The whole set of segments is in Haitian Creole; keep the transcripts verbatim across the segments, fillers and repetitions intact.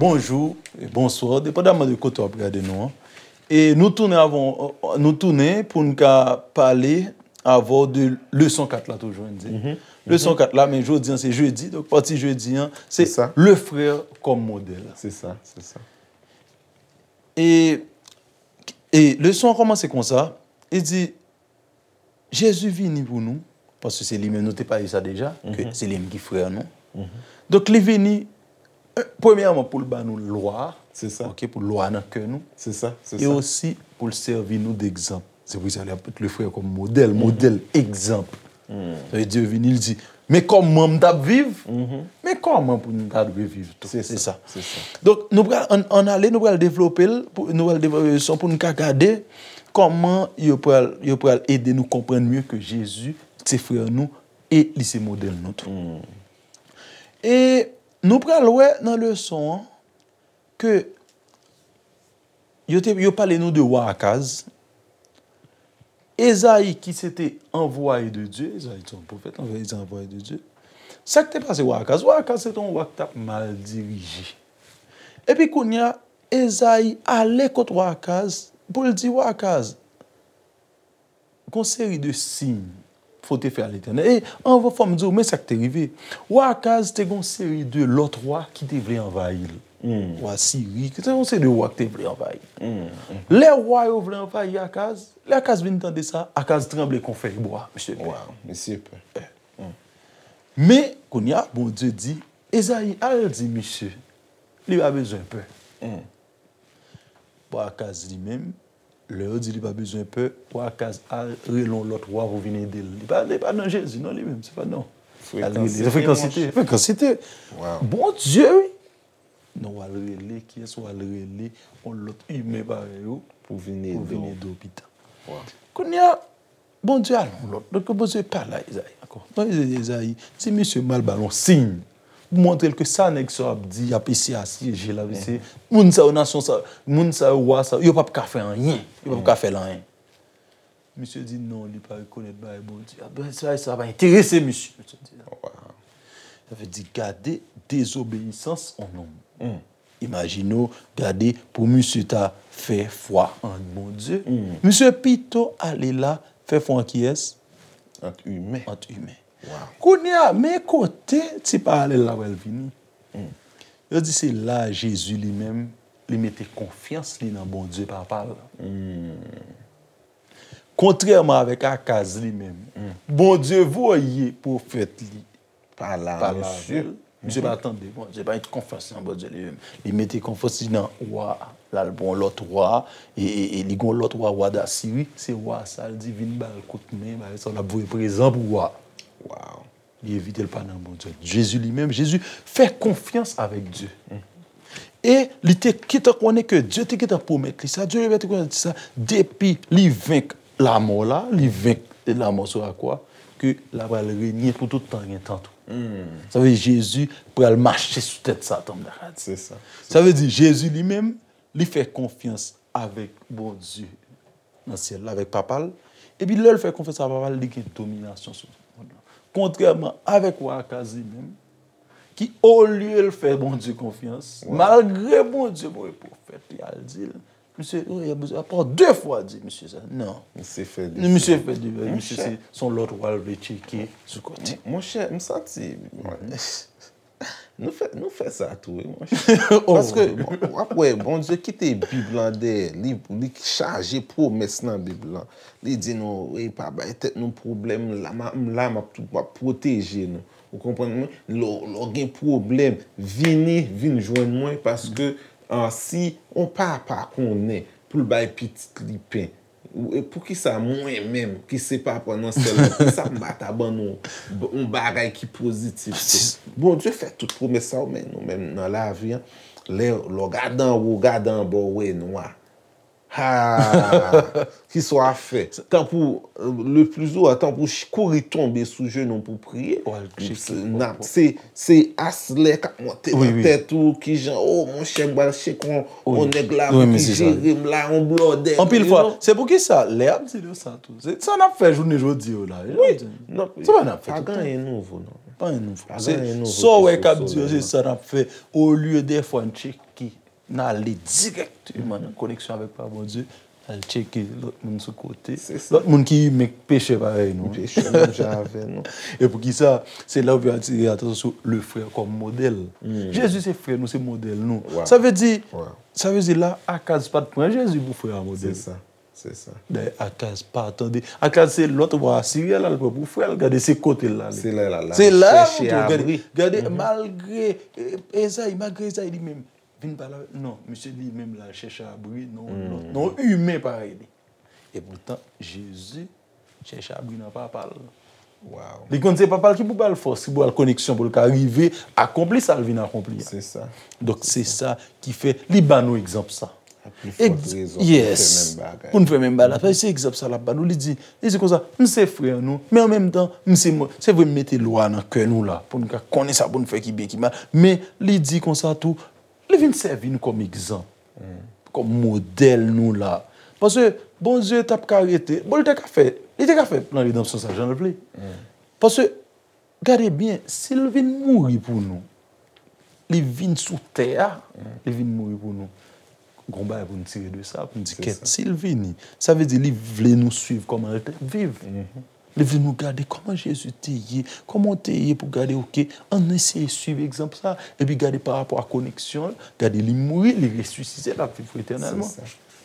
Bonjou e bonswa, depandaman de kote w ap gade nou an. E nou tounen avè w, nou tounen pou n ka pale avè w de leson kat la toujou, n di. Leson kat la, men jodi an se jedi, donk pati jedi an, se Sa. Le frère comme modèle. Se sa, se sa. E, e leson an kòmanse konsa, li di, Jezi vini pou nou, paske se li menm, nou te pale sa deja, ke se li menm ki frè nou. Donk, li vini, e, premyèman, pou l ba nou lwa a, Se sa. Ok, pou lwa nan kè nou. Se sa, se E sa. osi, pou l sèvi nou degzanp. Se pou sa, li ap met le frè kòm modèl, modèl, egzanp. Sa vle di, Dye vini, li di, men kòman m t ap viv, men kòman pou nou ta dwe viv tou. Se Se sa, sa. se sa. Donk, nou pral, ann, ann ale, nou pral devlope l, pou, nou pral devlope leson pou nou ka gade kòman yo pral, yo pral ede nou konprann mye ke Jezi se frè nou e li se modèl nou tou. E nou pral wè nan leson an ke yo te, yo pale nou de wa Akaz, Ezayi ki se te anvwaye de Dye, Ezayi se yon pwofèt, anvwaye, se anvwaye de Dye. Sa k te pase wa Akaz? Wa Akaz se te yon wa ki t ap mal dirije. Epi kounye a, Ezayi ale kot wa Akaz pou l di wa Akaz, gon seri de siy fò w te fè a Letènèl. E anvan, fò m di w, men sa k te rive. Wa Akaz te gon seri de lòt wa ki te vle anvayi l. Wa Siri, ki te gon seri de wa ki te vle anvayi l. Lè wa yo vle anvayi Akaz, lè Akaz vin tande sa, Akaz tranble kon fèy bwa, mesye. Waw, mesye pè. Men, kounye a, Bondye di, Ezayi, al di misye, li pa bezwen pè. Bon, Akaz li menm, lè yo di li pa bezwen pè, bon, Akaz al rele yon lòt wa pou vin ede l. Li pa, li pa nan Jezi, non, li menm, se pa non. Al rele, se frekansite, frekansite. Waw. Bondye, wi. Non, w al rele, kiyès w al rele, yon lòt imen parèy ou, Pou vin pou ede vin w. ede w pita. Waw. Kounye a, Bondye al yon lòt. Donk, Bondye pale a Ezayi ankò. Non, Ezayi, Ezayi, ti misye m al ba l yon siy. Pou montre l ke sa nèg sa yo ap di, y ap eseye asyeje l, ap eseye. Moun sa yo, nasyon sa, moun sa yo, wa sa, yo p ap ka fè anyen. Yo p ap ka fè l anyen. Misye di non, li pa rekonèt bagay Bondye. A, ben, sa, sa pa enterese misye. Misye di non. Sa vle di, gade dezobeyisans yon nonm. Imajine w, gade pou misye ta fè fwa an Bondye. Misye pito ale la fè fwa an kiyès? Ant imen. Ant imen. Kounye a, men kote ti paralèl la pral vini. Yo di se la Jezi li menm, li mete konfyans li nan Bondye Papa l. Kontrèman avèk Akaz li menm, Bondye voye pwofèt li pale avè l. Misye pa tande Bondye, pa gen konfyans nan Bondye li menm. Li mete konfyans li nan wa, l al pran lòt wa, e, e, e li gon lòt wa, wa Dasiri, se wa sa l di vin ba l kout men, bagay sa, l ap voye prezan pou wa. Li evite l pa nan Bondye. Jezi li menm, Jezi fè konfyans avèk Dye. E li te gentan konnen ke Dye te gentan pwomèt li sa, Dye te gentan pwomèt li sa, depi li venk lamò la, li venk lamò sou lakwa, ke l ap al renye pou tout tan gen tan tou. Sa vle di Jezi pral mache sou tèt Satan, m ta ka di. Se sa. Sa vle di Jezi li menm, li fè konfyans avèk Bondye nan syèl la, avèk Papa l. Epi lè l fè konfyans a Papa l, li gen dominasyon sou tout mond lan. Kontrèman avèk wa Akaz li menm, ki olye l fè Bondye konfyans, malgre Bondye voye pwofèt li al di l, misye, oh, y a bezwen, apre de fwa di misye sa. Non. Misye fè de Misye fè de, misye se, se yon lòt wa l vle tcheke sou kote. Monchè, m santi, Nou fè, nou fè sa tou, wi, monchè. Paske, bon, w ap wè, Bondye kite Bib lan dèyè li, li chaje pwomès nan Bib lan. Li di nou, e pa bay tèt nou pwoblèm, la, m, m la, m ap, m ap pwoteje nou. Ou konprann mwen? Lè w, lè w gen pwoblèm, vini, vin jwenn mwen, paske, ah, si yon papa konnen pou l bay pitit li pen, Ou, e poukisa mwen menm, ki se papa nan syèl la, poukisa m pa ta ban nou b-, yon bagay ki pozitif tou? Bondye fè tout pwomès sa yo, men nou menm nan lavi an, lè, lè w gade anwo, w gade anba, w wè nwa. Ha! Kisa w ap fè? Tanpou, le pli souvan, tanpou ch- kouri tonbe sou jenou pou priye. Se, se aslè k ap monte nan tèt ou, kijan, oh, monchè, m pral tcheke yon nèg la pou ki jere m la, yon blòdè. Anpil fwa, se poukisa lè y ap di nou sa tou. Se sa n ap fè jounen jodi yo la. Wi. Se pa n ap fè tout tan. Pa gen anyen nouvo, non. Pa gen anyen nouvo. Sa w wè k ap di yo, se sa n ap fè. Olye dèfwa n tcheke, n ale dirèkteman nan koneksyon avèk Papa Bondye, n al tcheke lòt moun sou kote. Lòt moun ki imen, k pechè parèy nou. Pechè menm jan avè nou. E poukisa? Se la w vin atire atansyon sou le frè kòm modèl. Jezi se frè nou, se modèl nou. Sa vle di, sa vle di la, Akaz pa t pran Jezi pou frè a modèl. Se sa. Se sa. Dayè, Akaz pa tande. Akaz se lòt wa Asirya l al pran pou frè l. Gade se kote l ale. Se la l al chèche abri. Gade, malgre Ezayi, malgre Ezayi li menm vin pale avè l. Non, misye li menm l al chèche abri nan yon lòt, nan yon imen parèy li. Epoutan, Jezi chèche abri nan Papa l. Li konn se Papa l ki pou ba l fòs, ki pou ba l koneksyon pou l ka rive akonpli sa l vin akonpli a. Donk, se sa ki fè li ba nou egzanp sa. Yes. Pou n fè menm bagay la. Paske se egzanp sa l ap ba nou. Li di, li di konsa, m se frè nou, men an menm tan, m se, se vre m mete lwa nan kè nou la, pou n ka konnen sa pou n fè ki byen, ki mal. Men li di konsa tou, li vin sèvi nou kòm egzanp, kòm modèl nou la. Paske Bondye t ap ka rete, bon, li te ka fè, li te ka fè plan redanmsyon sa jan l vle. Paske, gade byen, si l vin mouri pou nou, li vin sou tè a, li vin mouri pou nou. Gon bagay pou n tire de sa, pou n di kèt, si l vini, sa vle di li vle nou swiv kòman l te viv. Li vle nou gade kòman Jezi te ye, kòman w te ye pou gade, oke, ann eseye swiv egzanp sa, epi gade pa rapò a koneksyon l, gade li mouri, li resisite, l ap viv etènèlman.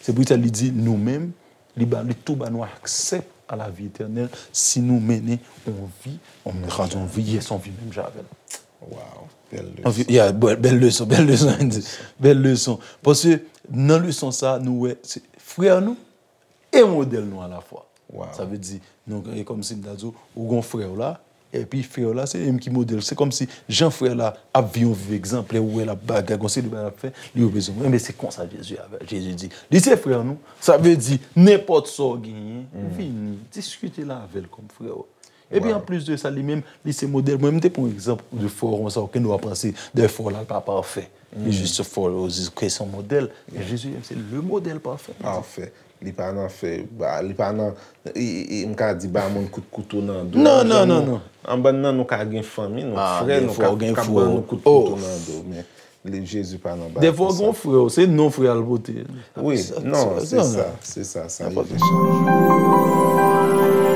Se pou sa li di nou menm, li ba, li tou ba nou aksè a lavi etènèl si nou mennen yon vi, yon, yon vi, yes, yon vi menm jan avè l. Wow, bèl leson. Yeah, bèl leson, bèl leson, bèl leson. Paske nan leson sa, nou wè, se frè nou, e modèl nou alafwa. Sa vle di, nou, e kòmsi m ta di w, ou gon frè w la, epi frè w la, se li menm ki modèl. Se kòmsi jan frè la ap viv yon vi egzanplè, ou wè l ap bagay, gon seri de bagay l ap fè, li reprezante. Enben, se konsa Jezi avè, Jezi di, li se frè nou. Sa vle di, nenpòt sa w genyen, vini, diskite l avè l kòm frè w. Epi anplis de sa, li menm, li se modèl. Mwen, m te pran yon egzanp de frè w konsa, oke, nou ap panse de frè w la, l pa pafè. Li jis fè w di ke se yon modèl. Men Jezi, se le modèl pafè. Pafè. Li pa nan fè, ba, li pa nan, i, i, i, m ka di ba moun kout kouto nan do. Non, non, non, non. Anba nan nou ka gen fanmi, nou frè, nou ka, ka ban nou kout kouto nan do. Men li, Jezi pa nan bagay konsa. Defwa gon frè w, se non frè a l pote. Wi, non, se sa, se sa, sa rive chanje.